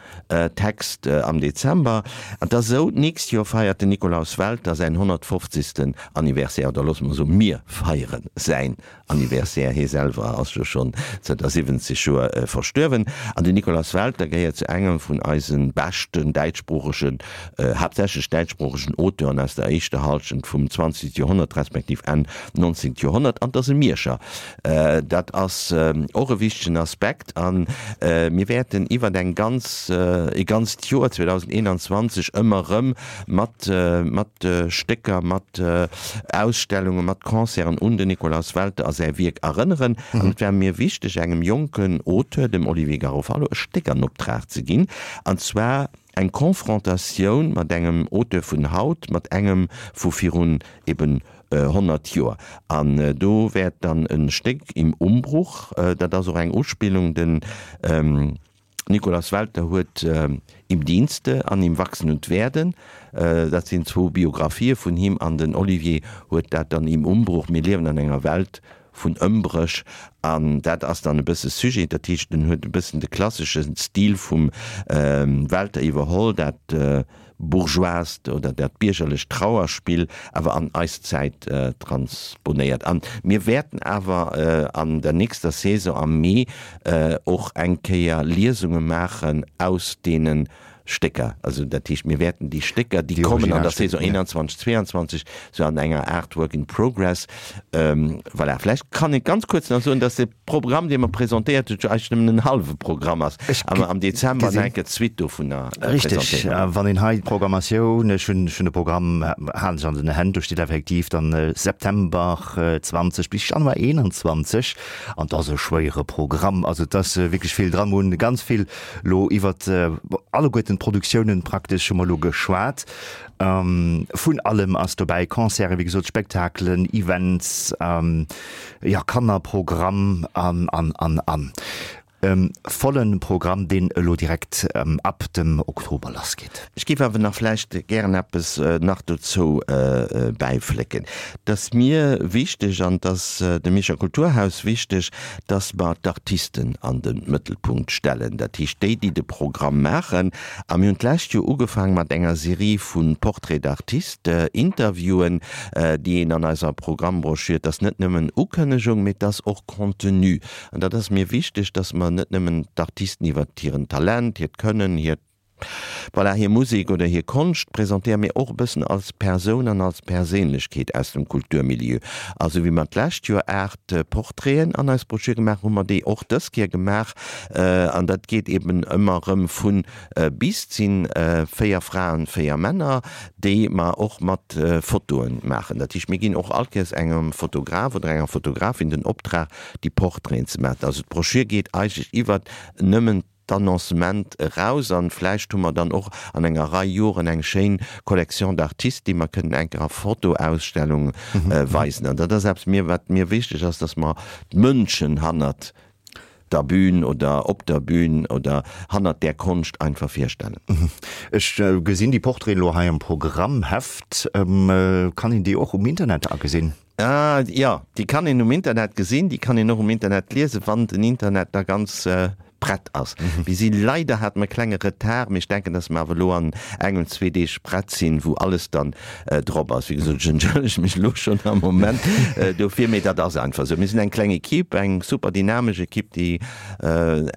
Text am Dezember. An 't ass esou, d'nächst Joer feiert den Nikolaus Welter säin 150. Anniversaire, oder loosse mer soen, mir feiere säin Anniversaire, hie selwer ass jo schonn zënter 70 Joer verstuerwen. An den Nikolaus Welter gehéiert zu engem vun eise beschten däitschsproochegen, haaptsächlech däitschsproochegen Auteuren aus der éischter Hallschent vum 20. Joerhonnert, respektiv Enn 19. Joerhonnert. An 't ass e Mierscher. Dat ass och e wichtegen Aspekt. A mir wäerten iwwer eng ganz, e ganzt Joer 2021 ëmmer erëm mat, mat Stécker, mat Ausstellungen, mat Concerten un den Nikolaus Welter a säi Wierk erënneren. An et war mir wichteg, engem jonken Auteur, dem Olivier Garofalo, e Stéck an Optrag ze ginn, an zwar eng Confrontatioun mat engem Auteur vun haut, mat engem vu virun eben 100 Joer. An do wäert dann e Stéck Im Umbruch, dat ass och eng Uspillung, den Nikolaus Welter huet Im Dienste an Im Wachsen und Werden, dat sinn zwou Biografië vun him, an den Olivier huet dat dann Im Umbruch, mir liewen an enger Welt vun Ëmbréch, an dat ass dann e bësse Sujet, dat heescht en huet e bëssen de klassesche Stil vum Welter iwwerholl, dat bourgeoist oder dat biergerlecht Trauerspill awer an eis Zäit transponéiert. An mir wäerten awer an der nächster Saison am Mee och eng Kéier Liesunge maachen aus deene Stécker. Also dat heescht, mir wäerten déi Stécker, déi kommen an der Saison 21, 22, sou an enger Aart Work in Progress, voilà. Vläicht kann ee ganz kuerz nach soen, dass de Programm, dee mer presentéiert huet, jo eigentlech nëmmen en hallwe Programm ass, a mer am Dezember nach eng Kéier d'Suite dovunner presentéieren. Richtig, wann een hei d'Programmatioun, ech hunn ech hunn de Programm, halen ech an den Hänn, do steet effektiv dann September 20 bis Januar 21, an et ass e schwéiere Programm, also et ass wierklech vill dran. Mer hunn ganz vill elo iwwert alleguerten d'Produktiounen praktesch hu mer elo geschwat. Vun allem ass dobäi, Concerten, wéi gesot, Spektakelen, Events, jo, Kannerprogramm an, an, an, an. E volle Programm, deen elo direkt ab dem Oktober lassgeet. Ech géif awer nach vläicht gären eppes nach dozou bäiflécken. Et ass mir wichteg an et ass dem Mierscher Kulturhaus wichteg, dass mer d'Artisten an de Mëttelpunkt stellen, dat heescht déi, déi de Programm maachen. A mir hunn d'lescht Joer ugefaang mat enger Serie vu Portraits d'artistes, Interviewen, déi een an eiser Programmbroschür, et ass net nëmmen Ukënnegung, mee et ass och Contenu. An dat ass mir wichteg, dass mer net nëmmen d'Artisten iwwert hiren Talent, hiert Kënnen, hiert, voilà, hir Musek oder hir Konscht presentéieren, mee och e bëssen als Persoun an als Perséinlechkeet aus dem Kulturmilieu. A sou wéi mer d'lescht Joer 8 Portraiten an eis Broschür gemaach hunn, hu mer déi och dës Kéier gemaach. An dat geet eben ëmmer erëm vun bis. Et si 4 Fraen, 4 Männer, déi mer och mat Fotoen maachen. Dat heescht, mir ginn och all Kéiers engem Fotograf oder enger Fotografin den Optrag, déi Portraiten ze maachen. Also d'Broschür geet eigentlech iwwert nëmmen d'Annoncement eraus an vläicht hu mer dann och an enger Rei Joren eng schéin Collection d'artistes, déi mer kënnen eng Kéier a Fotoausstellung weisen. An dat ass eppes mir, wat mir wichteg ass, dass mer d'Mënschen hannert der Bühn oder op der Bühn oder hannert där Konscht einfach virstellen. Ech gesinn déi Portraiten elo hei am Programmheft. Kann een déi och um Internet agesinn? Jo, déi kann een um Internet gesinn, déi kann een och um Internet liesen, wann den Internet da ganz prett ass. Mir si leider, hate mer e klenge Retard, mee ech denken, dass mer awer elo an engem, zwee Deeg prett sinn, wou alles dann drop ass. Wéi gesot, ech entschëllege mech elo schonn am Moment dofir, mee dat ass einfach esou. Mir sinn eng kleng Equipe, eng super dynamesch Equipe, déi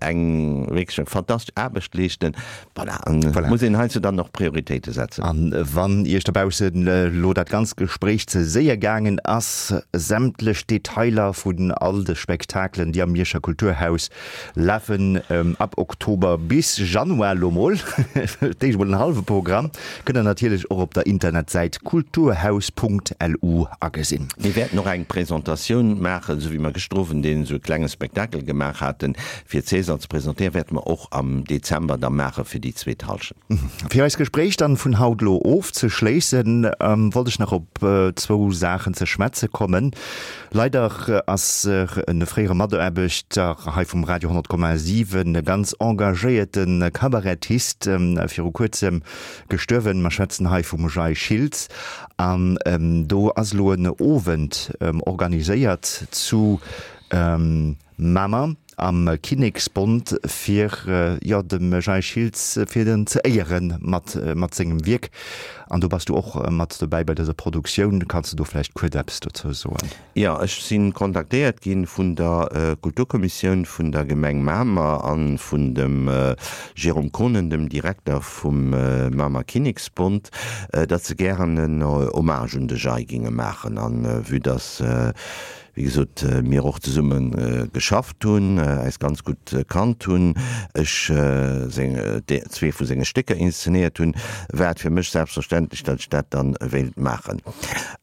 eng wierklech eng fantastesch Aarbecht leeschten. Voilà, an et muss een heiansdo dann och Prioritéite setzen. An wann Iech dobaussen elo dat ganzt Gespréich ze séier gaangen ass, sämtlech Detailer vun all de Spektakelen, déi am Mierscher Kulturhaus lafen. Virstellungen ab Oktober bis Januar, lo mol d'éischt mol en hallwe Programm, kënnt der natierlech och op der Internetsäit kulturhaus.lu agesinn. Mir wäerten och eng Presentatioun maachen, esou wéi mer gëschter Owend een esou e klenge Spektakel gemaach haten, fir César ze presentéieren, wäerte mer och am Dezember da maache fir déi zweet Hallschent. Fir eist Gespréich dann vun haut elo ofzeschléissen, wollt ech nach op zwou Saachen ze schwätze kommen. Leider ass e fréiere Mataarbechter hei vum Radio 100,7, e ganz engagéierte Kabarettist, viru kuerzem gestuerwen. Mer schwätzen hei vum Jay Schiltz. An do ass elo en Owend organiséiert zu Mamer am Kinneksbond fir, jo, dem Jay Schiltz fir en ze éiere mat mat sengem Wierk. An do bass du och mat dobäi bei dëser Produktioun. Kanns de do vläicht kuerz eppes dozou soen? Jo, ech si kontaktéiert gi vun der Kulturkommissioun vun der Gemeng Mamer a vun dem Jérôme Konen, dem Direkter vum Mamer Kinneksbond, datt se gären en Hommage un de Jay géinge maachen. A vue datt wéi gesot, mir och zesumme geschafft hunn, äis ganz gutt kannt hunn, ech seng, zwee vu senge Stécker inszenéiert hunn, war et fir mech selbstverständlech, datt ech dat dann wéilt maachen.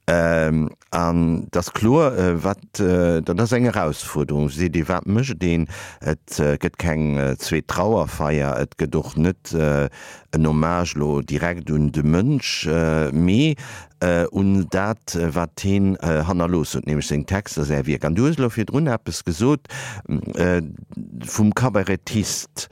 An et ass kloer, wat, dat ass eng Erausfuerderung, seet ee, wat mécht een? Et gëtt keng zweet Trauerfeier, et gëtt och net en Hommage elo direkt un de Mënsch, mee un dat, wat heen hannerlooss huet, nämlech seng Texter, säi Wierk. An du hues elo virdrun eppes gesot vum Kabarettist.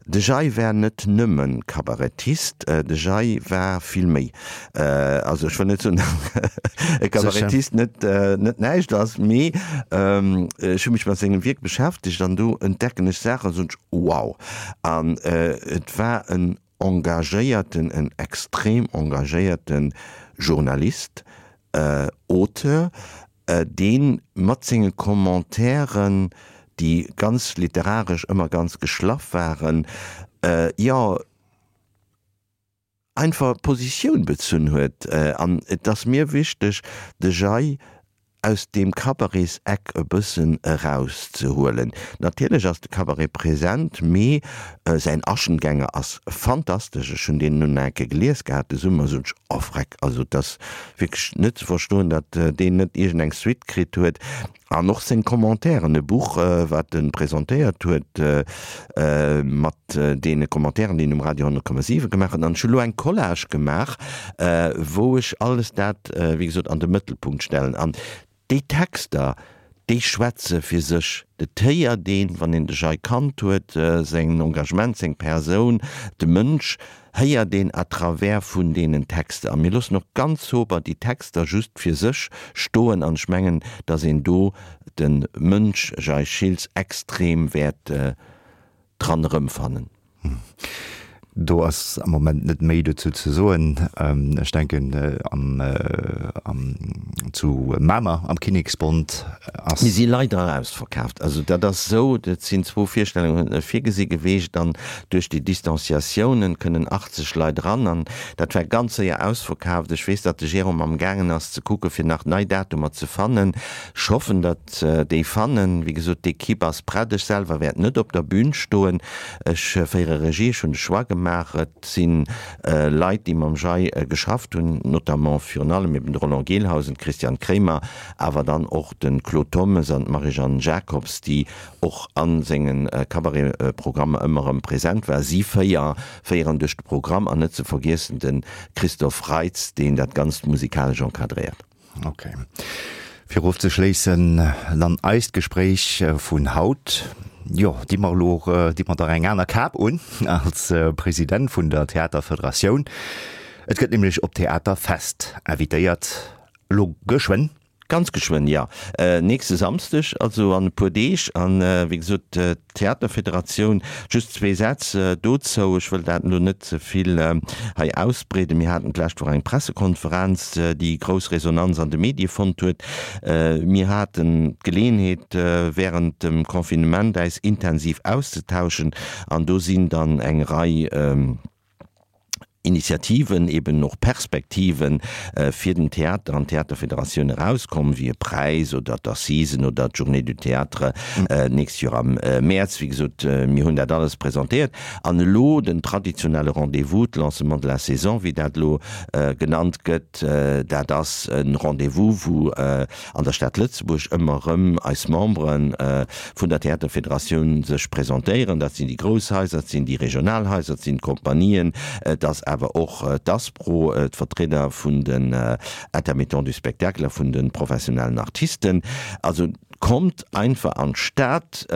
De Jay war net nëmme Kabarettist, de Jay war vill méi. Also ech wëll net soen, datt e Kabarettist net net näischt ass, mee ech hu mech mat sengem Wierk beschäftegt an do entdecken ech Saachen, soen ech, wow! An et war en engagéierten, en extrem engagéierte Journalist, Auteur, dee mat senge Commentairen, déi ganz literaresch ëmmer ganz geschlaff waren, jo, einfach Positioun bezunn huet. An et ass mir wichteg, de Jay aus deem Cabarets-Eck e bëssen erauszehuelen. Natierlech ass de Cabaret present, mee säin Aschengänger ass fantastesch. Ech hunn deen nun eng Kéier gelies gehat de Summer, sot ech, oh vreck, also et ass wierklech net ze verstoen, datt deen net iergendeng Suite kritt huet. An och seng Commentairen, e Buch, wat e presentéiert huet, mat deene Commentairen, déi en um Radio 100,7 gemaach huet. An ech hu lo eng Collage gemaach, wou ech alles dat, wéi gesot, an de Mëttelpunkt stellen. An déi Texter, déi schwätze fir sech. Et héiert een, wann een de Jay kannt huet, säin Engagement, seng Persoun, de Mënsch, héiert een à travers vun deenen Texter. A mir loossen och ganz sober déi Texter just fir sech stoen. An ech mengen, datt een do de Mënsch Jay Schiltz extrem wäert dran erëmfannen. Do ass am Moment net méi dozou ze soen. Ech denken am, am, zu Mamer am Kinneksbond ass. Mir si leider ausverkaaft. Also dat ass esou, et sinn zwou Virstellunge virgesi geweecht an duerch déi Distanciatiounen kënnen 80 Leit eran an dat war ganz séier ausverkaaft. Ech weess, datt de Jérôme amgaangen ass ze kucke fir nach nei Datumer ze fannen. Ech hoffen, datt. Déi fannen. Wéi gesot, d'Equipe ass prett. Ech selwer wäert net op der Bühn stoen. Ech féiere Regie. Ech hunn de Choix gemaach. Et si Leit, déi mam Jay geschafft hunn, notamment virun allem eben de Roland Gelhausen, d'Christiane Kremer, awer dann och de Claude Thommes an d'Marie-Jeanne Jacobs, déi och a senge Cabaret-Programmer ëmmer erëm present war. Si 4 féieren duerch de Programm an net ze vergiessen de Christophe Reitz, deen dat Ganzt musikalesch encadréiert. Ok. Fir ofzeschléissen dann eist Gespréich vun haut, jo, di mer elo, di mer der eng aner Kap un als President vun der Theaterfederatioun. Et gëtt nämlech op d'Theaterfest invitéiert, elo geschwënn. Ganz geschwënn, jo. Nächste Samsdeg, also an e puer Deeg. An, wéi gesot, D'Theaterfederatioun, just zwee Sätz dozou, ech wëll dat elo net ze vill hei ausbreeden. Mir haten d'lescht Woch eng Pressekonferenz, déi grouss Resonanz an de Medie fonnt huet. Mir haten d'Geleeënheet, wärend dem Confinement äis intensiv auszetauschen an do sinn dann eng Rei. Initiativen, eben och Perspektiven fir den Theater an d'Theaterfederatioun erauskomm, wéi e Präis oder d'Assisen oder d'Journée du Théâtre d'nächst Joer am Mäerz. Wéi gesot, mir hunn dat alles presentéiert. An elo den traditionelle Rendez-vous, d'Lancement de la saison, wéi dat elo genannt gëtt, dat ass e Rendez-vous, wou an der Stad Lëtzebuerg ëmmer erëm eis Membere vun der Theaterfederatioun sech presentéieren. Dat sinn déi grouss Haiser, dat sinn déi regional Haiser, dat sinn d'Kompanien, et ass awer och d'ASPRO, d'Vertrieder vun den Intermittents du spectacle a vun de professionellen Artisten. Also kommt einfach an d'Stad,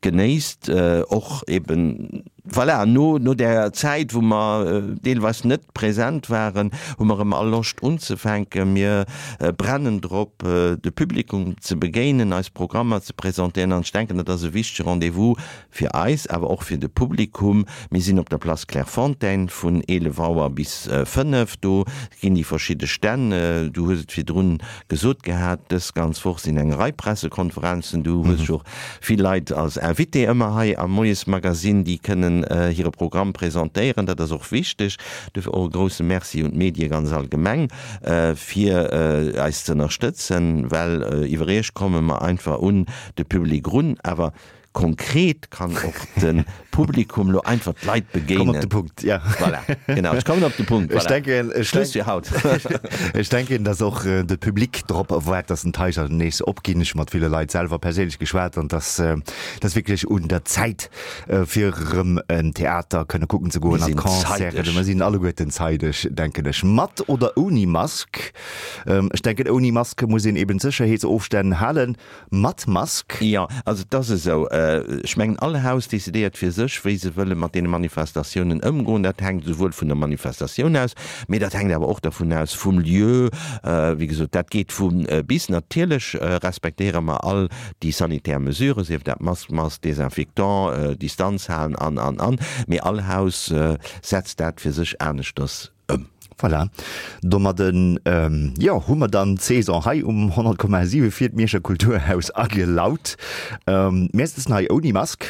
genéisst och eben, voilà, no no där Zäit, wou mer deelweis net present waren, hu mer erëm all Loscht unzefänken. Mir brennen drop, de Publikum ze begéinen, eis Programmer ze presentéieren an ech denken, dat ass e wichtege Rendez-vous fir eis, awer och fir de Publikum. Mir sinn op der Place Clairefontaine vun 11 Auer bis 5. Do ginn déi verschidde Stänn, du hues et virdrun gesot gehat, dës ganz Woch sinn eng Rei Pressekonferenzen, du hues jo och vill Leit als Invité ëmmer hei am Moiesmagazine, déi kënnen hire Programm presentéieren. Dat ass och wichteg. Duerfir och e grousse Merci un d'Medie ganz allgemeng, fir eis ze ënnerstëtzen, well iwwer Iech komme mer einfach un de Public erun. Awer Konkret kann och de Publikum lo einfach d'Leit begéinen. Komm op de Punkt, ja. Voilà, genau, ech kommen op de Punkt. Ech denken, ech Schluss fir haut. Ech denken, dass och de Public drop waart, dass den d'Haiser nees opginn. Ech hu mat ville Leit selwer perséinlech geschwat an dass dass wierklech un der Zäit, fir erëm en Theater kënne kucken ze goen Mir an sinn Concerten. zeideg. Mer sinn alleguerten zeideg, denken ech. Mat oder ouni Mask? Ech denken, ouni Mask muss een eben d'Sécherheetsofstänn halen. Mat Mask? Jo, also et ass esou, ech mengen all Haus decidéiert fir sech, wéi se wëlle mat deene Manifestatiounen ëmgoen. Dat hänkt esouwuel vun der Manifestatioun aus, mee dat hänkt awer och dervun aus vum Lieu. Wéi gesot, dat geet vu bis. Natierlech respektéiere mer all déi sanitär Mesuren, sief dat Mask, Mask, Desinfectant, Distanz halen an, an, an. Mee all Haus setzt dat fir sech aneschters ëm. Voilà, domadden, jo, hu mer dann d'Saison hei um 100,7 fir d'Mierscher Kulturhaus agelaut. Mir sëtzen hei ouni Mask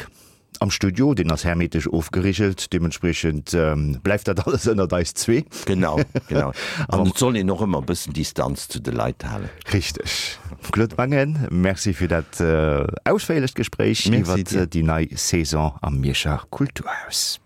am Studio, deen ass hermetesch ofgerigelt, deementspriechend bleift dat alles ënnert eis zwee. Genau, genau. An et soll een och ëmmer e bëssen Distanz zu de Leit halen. Richteg. Claude Mangen, Merci fir dat ausféierlecht Gespréich iwwert déi nei Saison am Mierscher Kulturhaus.